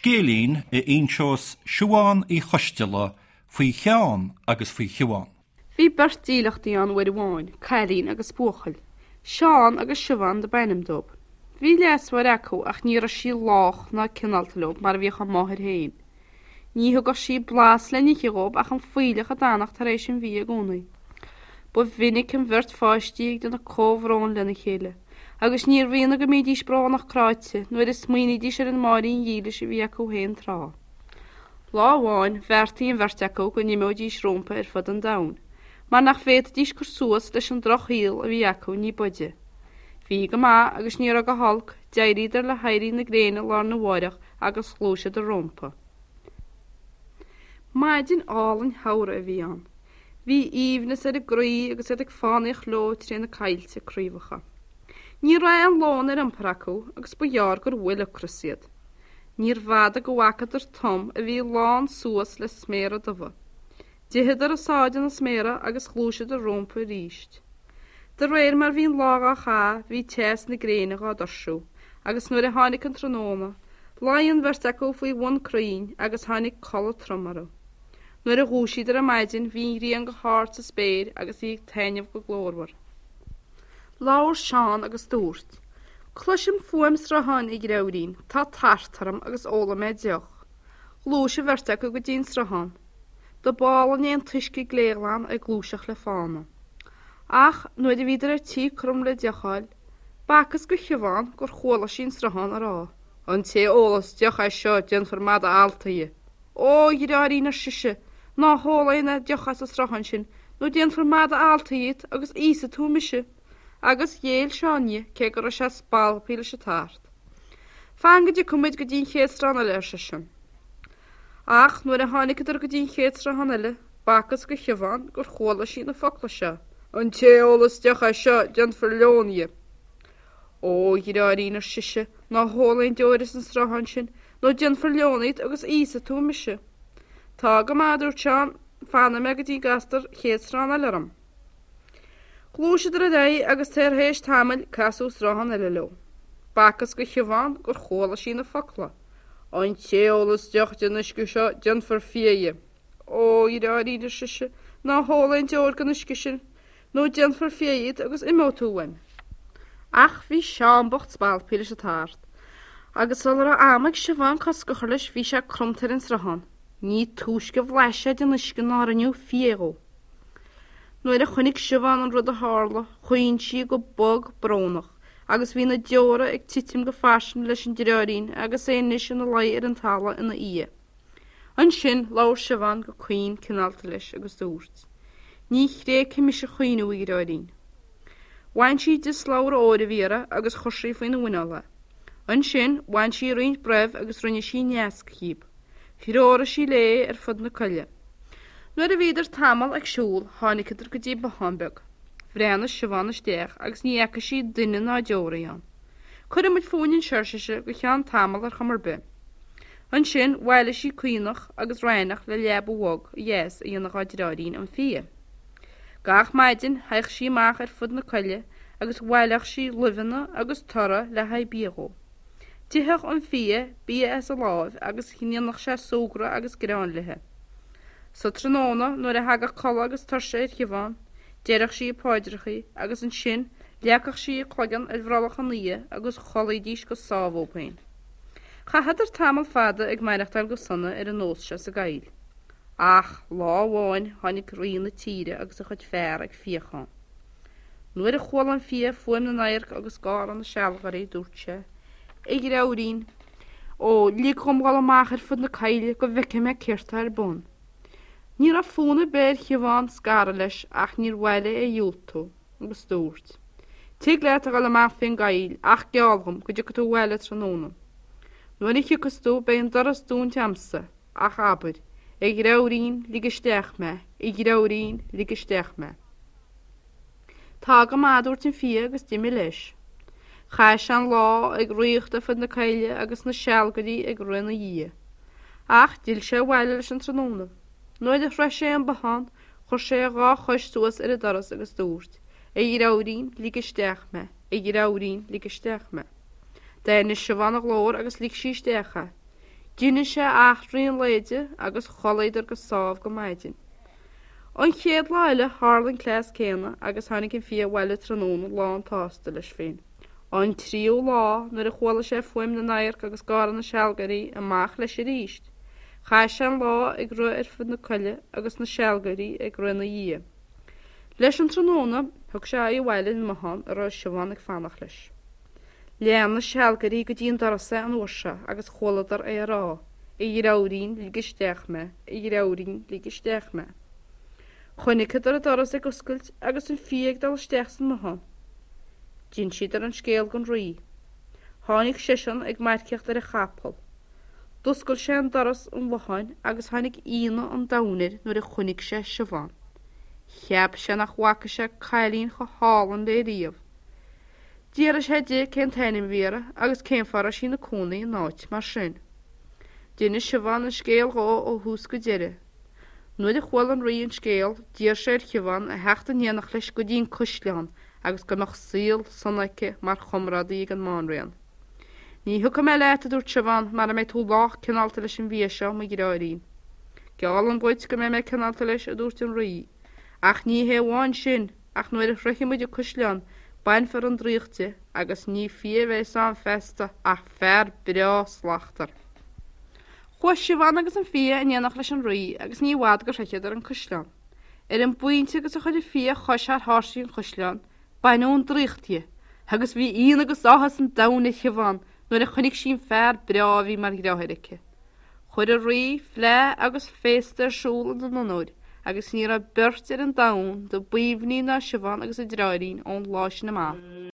Scéilín a inseos Siubhán Uí Choisteala faoi Sheán agus faoi Shiubhán. Bhí beirt dílleachtaí ann uair amháin, cailín agus buachaill. Seán agus Siubhán do b'ainm dóibh. Bhí leasmháthair acu ach ní raibh sí lách ná cineálta leo mar a bhíodh a máthair féin. Ní thugadh sí blas le n-ithe dhóibh ach an fuílleach a d'fhanadh tar éis an bhídh i gcónaí. Ba mhinic an bheirt pháistí ag déanamh comhbhróin lena chéile, agus níorbh ionadh go mbídís brónach cráite nuair a smaoinídís ar an máithrín dhílis a bhí acu féin tráth. Lá amháin, bheartaigh an bheirt acu go n-imeoidís rompu ar fud an domhain, mar nach bhféadfaidís cur suas leis an drochshaol a bhí acu ní b'fhaide. Bhí go maith agus ní raibh go holc, d'éiríodar le héirí na gréine lá arna mháireach agus ghluaiseadar rompu. Maidin álainn shamhraidh a bhí ann. Bhí aoibhneas ar a gcroí agus iad ag fánaíocht leo tré na coillte craobhacha. Ní raibh aon lón ar iompar acu agus ba ghearr gur bhuail ocras iad. Níorbh fhada go bhfacadar tom a bhí lán suas le sméara dubha. D'itheadar a sáith de na sméara agus ghluaiseadar rompu arís. De réir mar bhí an lá dhá chaitheamh bhí teas na gréine dhá dtuirsiú agus nuair a tháinig an tráthnóna, luigh an bheirt acu faoi bhun crainn agus tháinig codladh trom orthu. Nuair a dhúisíodar ar maidin bhí an ghrian go hard sa spéir agus í ag taitneamh go glórmhar. Labhair Seán agus dúirt, Cloisim fuaim srutháin, a dheirfiúirín, tá tart orm agus ólfaidh mé deoch. Ghluais an bheirt acu go dtí an sruthán. Do b'álainn é an t-uisce gléghlan ag gluaiseacht le fána. Ach nuair a bhíodar ar tí cromadh le deoch a fháil, b'fhacthas go Shiubhán gur chuala sí an sruthán ag rá, An té a ólas deoch as seo déanfar mada allta dhe. Ó, a dheartháirín, ar sise, ná hól aon deoch as an sruthán sin, nó déanfar mada allta dhíot agus íosfaidh tú mise. Agus ghéill Seán di, cé go raibh sé spalptha leis an tart. Fan go dtiocfaidh muid go dtí an chéad sruthán eile, ar seisean. Ach nuair a tháiniceadar go dtí an chéad sruthán eile, b'fhacthas go Shiubhán gur chuala sí na focla seo, An té a ólas deoch as seo, déanfar leon dhe. Ó, a dheartháirín, ar sise, ná hól aon deoir as an sruthán sin, nó déanfar leon dhíot agus íosfaidh tú mise. Tá go maith, a dúirt Seán, fanfaidh mé go dtí gcastar chéad sruthán eile orm. Ghluaiseadar ar aghaidh agus tar éis tamaill casadh sruthán eile leo. B'fhacthas go Shiubhán gur chuala sí na focla, An té a ólas deoch den uisce seo déanfar fia dhe. Ó, a dheartháirín, ar sise, ná hól aon deoir den uisce sin, nó déanfar fia dhíot agus imeoidh tú uaim. Ach bhí Seán bocht spalptha leis an tart, agus sula raibh am ag Siubhán cosc a chur leis bhí sé cromta ar an sruthán. Ní túisce a bhlais sé den uisce ná rinneadh fia dhó. Nuair a chonaic Siubhán an rud a tharla, chaoin sí go bog brónach, agus bhí na deora ag titim go fairsing leis an deartháirín agus é anois ina luí ar an talamh ina fhia. Ansin labhair Siubhán go caoin cineálta leis agus dúirt, Ní thréigfidh mise caoineadh, a dheartháirín. Bhain sí di slabhra óir a bhí uirthi agus chuir sí faoina mhuineál é. Ansin bhain sí roinnt broibh agus rinne sí naosc dhíob. Threoraigh sí léi ar fud na coille. Nuair a bhíodar tamall ag siúl tháiniceadar go dtí bothán beag. Bhreathnaigh Siubhán isteach agus ní fhaca sí duine ná deoraí ann. Cuirfidh muid fúinn anseo, ar sise, go ceann tamaill ar chuma ar bith. Ansin bhailigh sí caonach agus raithneach le leaba bhog dheas a dhéanamh dhá deartháirín an fia. Gach maidin théadh sí amach ar fud na coille agus bhaileodh sí luibheanna agus toradh le haghaidh bia dhó. D'itheadh an fia bia as a láimh agus dhéanadh sé súgradh agus greann léi. Sa tráthnóna nuair a thagadh codladh agus tuirse ar Shiubhán, deireadh sí a paidreachaí agus ansin leagfadh sí a cloigeann ar bhrollach an fhia agus chodlaídís go sámh dhóibh féin. Chaitheadar tamall fada ag maireachtáil go sona ar an nós seo sa gcoill. Ach lá amháin tháinig rí na tíre agus a chuid fear ag fíochán. Nuair a chuala an fia fuaim na n-adharc agus gáire na sealgairí dúirt sé, A dheartháirín, ó, lig dhom dhul amach ar fud na coille go bhfeicfidh mé céard tá ar bun. Ní raibh fonn ar bith ar Shiubhán scaradh leis ach níor mhaith léi é a dhiúltú. agus dúirt, Tig leat a dhul amach fén gcoill ach geall dhom go dtiocfaidh tú abhaile tráthnóna. Nuair a thiocfas tú beidh an doras dúnta a'msa, ach abair, 'A dheartháirín, lig isteach mé, a dheartháirín, lig isteach mé. Tá go maith, a dúirt an fia agus d'imigh leis. Chaith sé an lá ag ritheacht ar fud na coille agus na sealgairí ag rith ina dhiaidh. Ach d'fhill sé abhaile leis an tráthnóna. Nuair a shroich sé an bothán, Chuir sé a dhá chois suas ar an doras agus dúirt, A dheartháirín, lig isteach mé, a dheartháirín, lig isteach mé. D'aithnigh Siubhán a ghlór agus lig sí isteach é. D'inis sé eachtraí an lae di agus chodlaíodar go sámh go maidin. An chéad lá eile tharla an cleas céanna agus tháinig an fia abhaile tráthnóna lán tsásta leis féin. An tríú lá, nuair a chuala sé fuaim na n-adharc agus gáire na sealgairí, amach leis arís. Chaith sé an lá ag rith ar fud na coille agus na sealgairí ag rith ina dhiaidh. Leis an tráthnóna, thug sé aghaidh abhaile ar an mbothán a raibh Siobhán ag fanacht leis. Lean na sealgairí go dtí an doras é an uair seo agus chualadar é ag rá, A dheartháirín, lig isteach mé, a dheartháirín, lig isteach mé. Chonaiceadar an doras ag oscailt agus an fia ag dul isteach san mbothán. D'insíodar an scéal don rí. Tháinig seisean ag marcaíocht ar a chapall. D'oscail sé an doras an bhotháin agus tháinig ionadh an domhain air nuair a chonaic sé Siobhán. Cheap sé nach bhfaca sé cailín chomh hálainn léi riamh. D'fhiafraigh sé di cén t-ainm a bhí uirthi agus cén fáth a raibh sí ina cónaí in áit mar sin. D'inis Siobhán an scéal dhó ó thús go deireadh. Nuair a chuala an rí an scéal, d'iarr sé ar Shiobhán a theacht in éineacht leis go dtí an caisleán agus go mbeadh saol sona aici mar chomrádaí ag an mBanríon. Ní thiocfaidh mé leat, a dúirt Siobhán, mara mbeidh tú lách cineálta leis an bhfia seo, mo dheartháirín. Geallaim dhuit go mbeidh mé cineálta leis, a dúirt an rí. Ach ní hé amháin sin, ach nuair a shroichfidh muid an caisleán, bainfear an draíocht de agus ní fia a bheas ann feasta ach fear breá slachtmhar. Chuaigh Siobhán agus an fia in éineacht leis an rí agus ní i bhfad gur shroicheadar an caisleán. Ar an bpointe agus a chuir an fia a chois thar tháirsí an chaisleáin, baineadh an draíocht dhe, agus bhí ionadh agus áthas an domhain ar Shiobhán nuair a chonaic sí an fear breá a bhí mar dheartháir aici. Chuir an rí fleá agus féasta ar siúl ina n-onóir agus ní raibh beirt ar an domhan do b'aoibhní ná Siobhán agus a deartháirín ón lá sin amach.